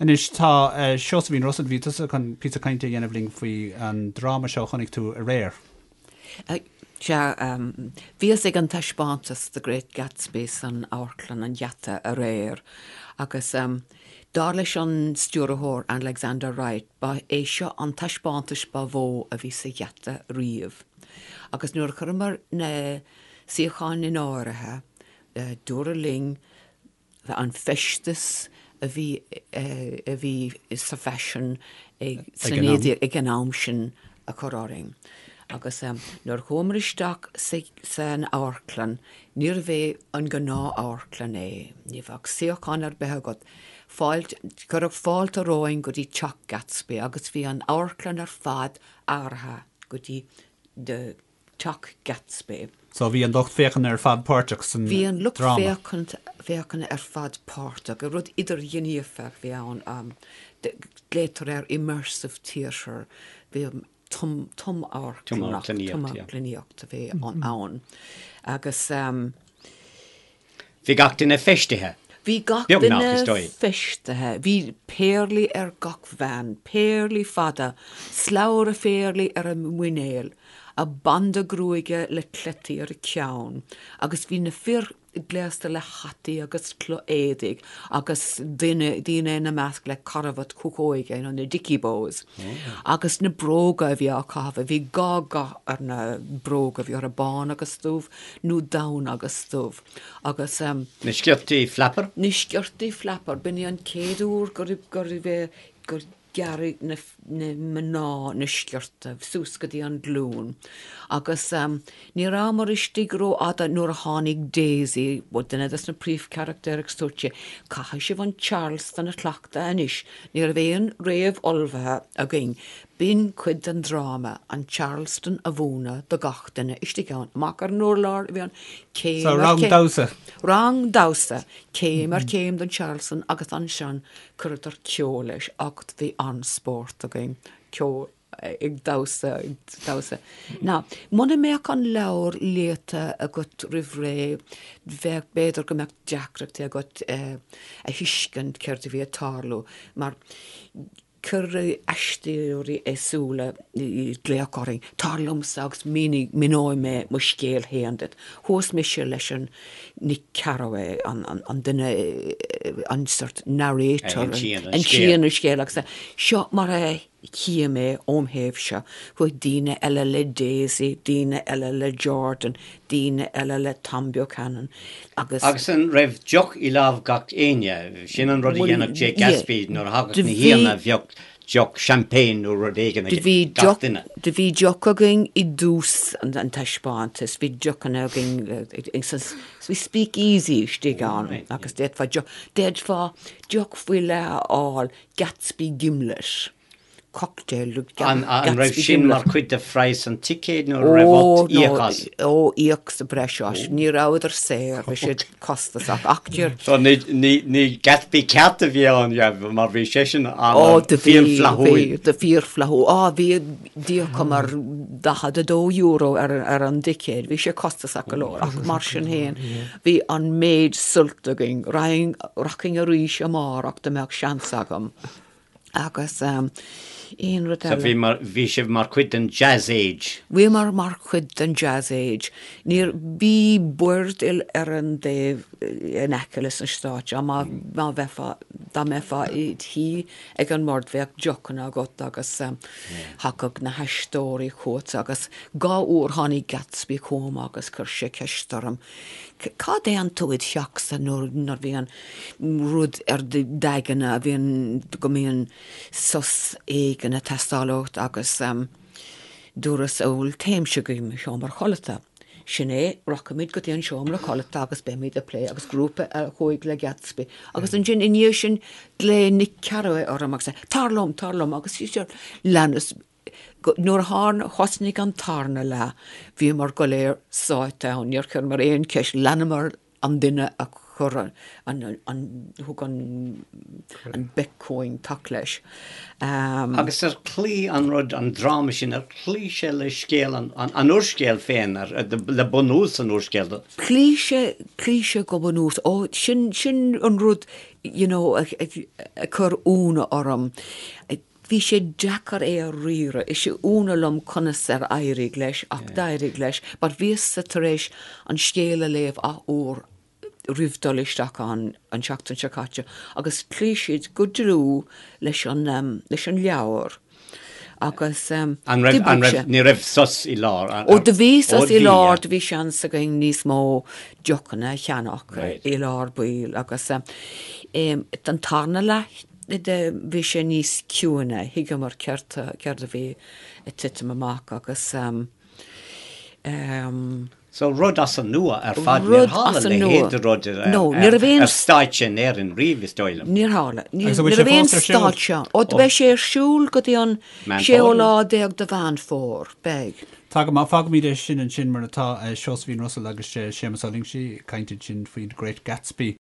Anois tá Seosaimhín Russell, bhí tusa chun píosa cainte a dhéanamh linn faoi an dráma seo a chonaic tú aréir. Sea, bhíos ag an taispeántas The Great Gatsby san Amharclann an Gheata aréir agus dar leis an stiúrthóir Alexander Wright ba é seo an taispeántas ba mhó a bhí sa Gheata riamh. Agus nuair a chuireamar na suíocháin in áirithe, dúradh linn an feisteas a bhí a bhí sa bhfaisean ag sna 19 ag an am sin a chur orainn. Agus nuair a chuamar isteach san amharclann, níorbh é an gnáth-amharclann é, ní bheadh suíochán ar bith agat. Fáilte, cuireadh fáilte romhainn go dtí teach Gatsby agus bhí an amharclann ar fad athraithe go dtí the Teach Gatsby. So bhí an lucht féachana ar fad páirteach san Bhí an lucht dráma. féachana ar fad páirteach. Rud idirghníomhach a bhí ann. Glaotar air immersive theatre. Bhí tumamharclannaíocht a bhí ann. Agus. Bhí gach duine feistithe. Bhí gach duine feistithe. Bhí péarlaí ar gach bhean, péarlaí fada, slabhra phéarlaí ar a muinéal, a banda gruaige le cleití ar a ceann, agus bhí na fir gléasta le hataí agus cloch-éadaigh agus duine, daoine ina measc le carbhat cuachóige, you know, na dicky bows. Agus na bróga a bhí á caitheamh, bhí gá dhath ar na bróga, bhí orthu bán agus dubh, nó donn agus dubh agus. Na sciortaí flapper? Na sciortaí flapper, b'in é an chéad uair gur gur gur gearradh na na mná na sciorta suas go dtí an glún agus ní rabhamar istigh rófhada nuair a tháinig Daisy, duine des na príomhcharachtair agus dúirt sí, caithfidh sibh an Charleston a chleachtadh anois, ní raibh aon réamh-ullmhaithe againn, B'in cuid den dráma, an Charleston a mhúineadh do gach duine istigh ann. Amach ar an urlár a bhí ann, céim ar chéim. So rang damhsa. Rang damhsa, céim ar chéim den Charleston agus ansin chuireadar ceol leis ach bhí an-spórt againn, ceol, ag damhsa, ag damhsa. Now, muna mbeadh an leabhar léite agat roimh ré, bheadh, b'fhéidir go mbeadh deacrachtaí agat a thuiscint céard a bhí ag tarlú mar Cuireadh aisteoirí éagsúla glaoch orainn, tar liomsa agus mínigh, míneoidh mé mo scéal féin duit. Chuas mise leis an Nick Carraway, an duine, an sort narrator, a insíonn an scéal agus seo mar a tchím é óm thaobhse. Chuaigh daoine eile le Daisy, daoine eile le Jordan, daoine eile le Tom Buchanan agus. Agus an raibh deoch i lámh gach éinne? Sin an rud a dhéanadh Jay Gatsby nuair a thagadh na haíonna bheadh deoch champagne nó rud éigin ag gach duine. Do bhí deoch againn i dtús an taispeántais, bhí deochanna againn sa bhí speakeasy istigh ann agus d'fhéadfá deoch, d'fhéadfá deoch faoi leith a fháil, Gatsby Gimlet. cocktail An raibh sin mar chuid de phraghas an ticéid nó an raibh ort íoc as? Ó, íoc sa bhreis as. Ní rabhadar saor, bhí siad costasach. Ach deir. So ní Gatsby ceart a bhí ann, mar bhí seisean an-fhíorfhlaithiúil. Ó, fíorfhlaithiúil. Á, bhí, d'íocamar €42 ar an dticéad. Bhí sé costasach go leor ach mar sin féin, bhí an méid suilt againn. Rachainn arís amárach dá mbeadh seans agam. Agus aon rud eile. So bhí mar, bhí sibh mar chuid den Jazz Age? Bhíomar mar chuid den Jazz Age. Níor, bhí boird ar an dtaobh in aice leis an stáitse, má, má bheifeá, dá mbeifeá id shuí ag an mbord bheadh deochanna agat agus thagadh na haisteoirí chugat agus dhá uair tháinig Gatsby chugam agus chuir sé ceist orm, cá dtéann tú id theachsa nuair, nuair a bhíonn rud ar d'aigne a bhíonn, go mbíonn sos éigin ag teastáil uait agus dúras bhuel téimse go dtí mo sheomra codlata. Sin é, rachaimid go dtí an seomra codlata agus beimid ag plé agus grúpa a chuaigh le Gatsby agus ansin i ndiaidh sin ghlaoigh Nick Carraway orm agus é, tar liom, tar liom agus leanas Nuair a thosnaigh an tarna leath bhíomar go léir sáite ann, níor chuireamar aon cheist, leanamar an duine a. Chuir an, an, thug an, an Beck-Coing tac leis. Agus ar chloígh an rud, an dráma sin, ar chloígh sé le scéal an, an úrscéil féin, ar, le bunús an úrscéil? Chloígh sé, chloígh sé go bunús. Ó, sin, sin an rud, you know, a, a, a chuir ionadh orm. Bhí sé deacair é a riaradh. Is ionadh liom conas ar éirigh leis, ach d'éirigh leis. But bhíos-sa tar éis an scéal a léamh athuair roimh dul isteach ann an tseachtain seo caite agus chloígh siad go dlúth leis an, leis an leabhar agus An raibh, an raibh, ní raibh sos i lár? Ó do bhí sos i lár, do bhí seans againn níos mó deochanna a cheannach i lár baill agus an tarna leath de bhí sé níos ciúine, thuigeamar céard céard a bhí ag titim amach agus So rud as an nua ar fad, níor tharla a leithéid de rud ar stáitse in Éirinn riamh, is dóigh liom. Níor tharla. Ní raibh aon stáitse ann. Ó, beidh sé ar siúl go dtí an séú lá déag de Mheán Fómhair. Beidh. Tá go maith, fágfaimid é sin ansin mar atá, Seosaimhín Russell agus Séamus Ó Loingsigh ag caint ansin faoi The Great Gatsby.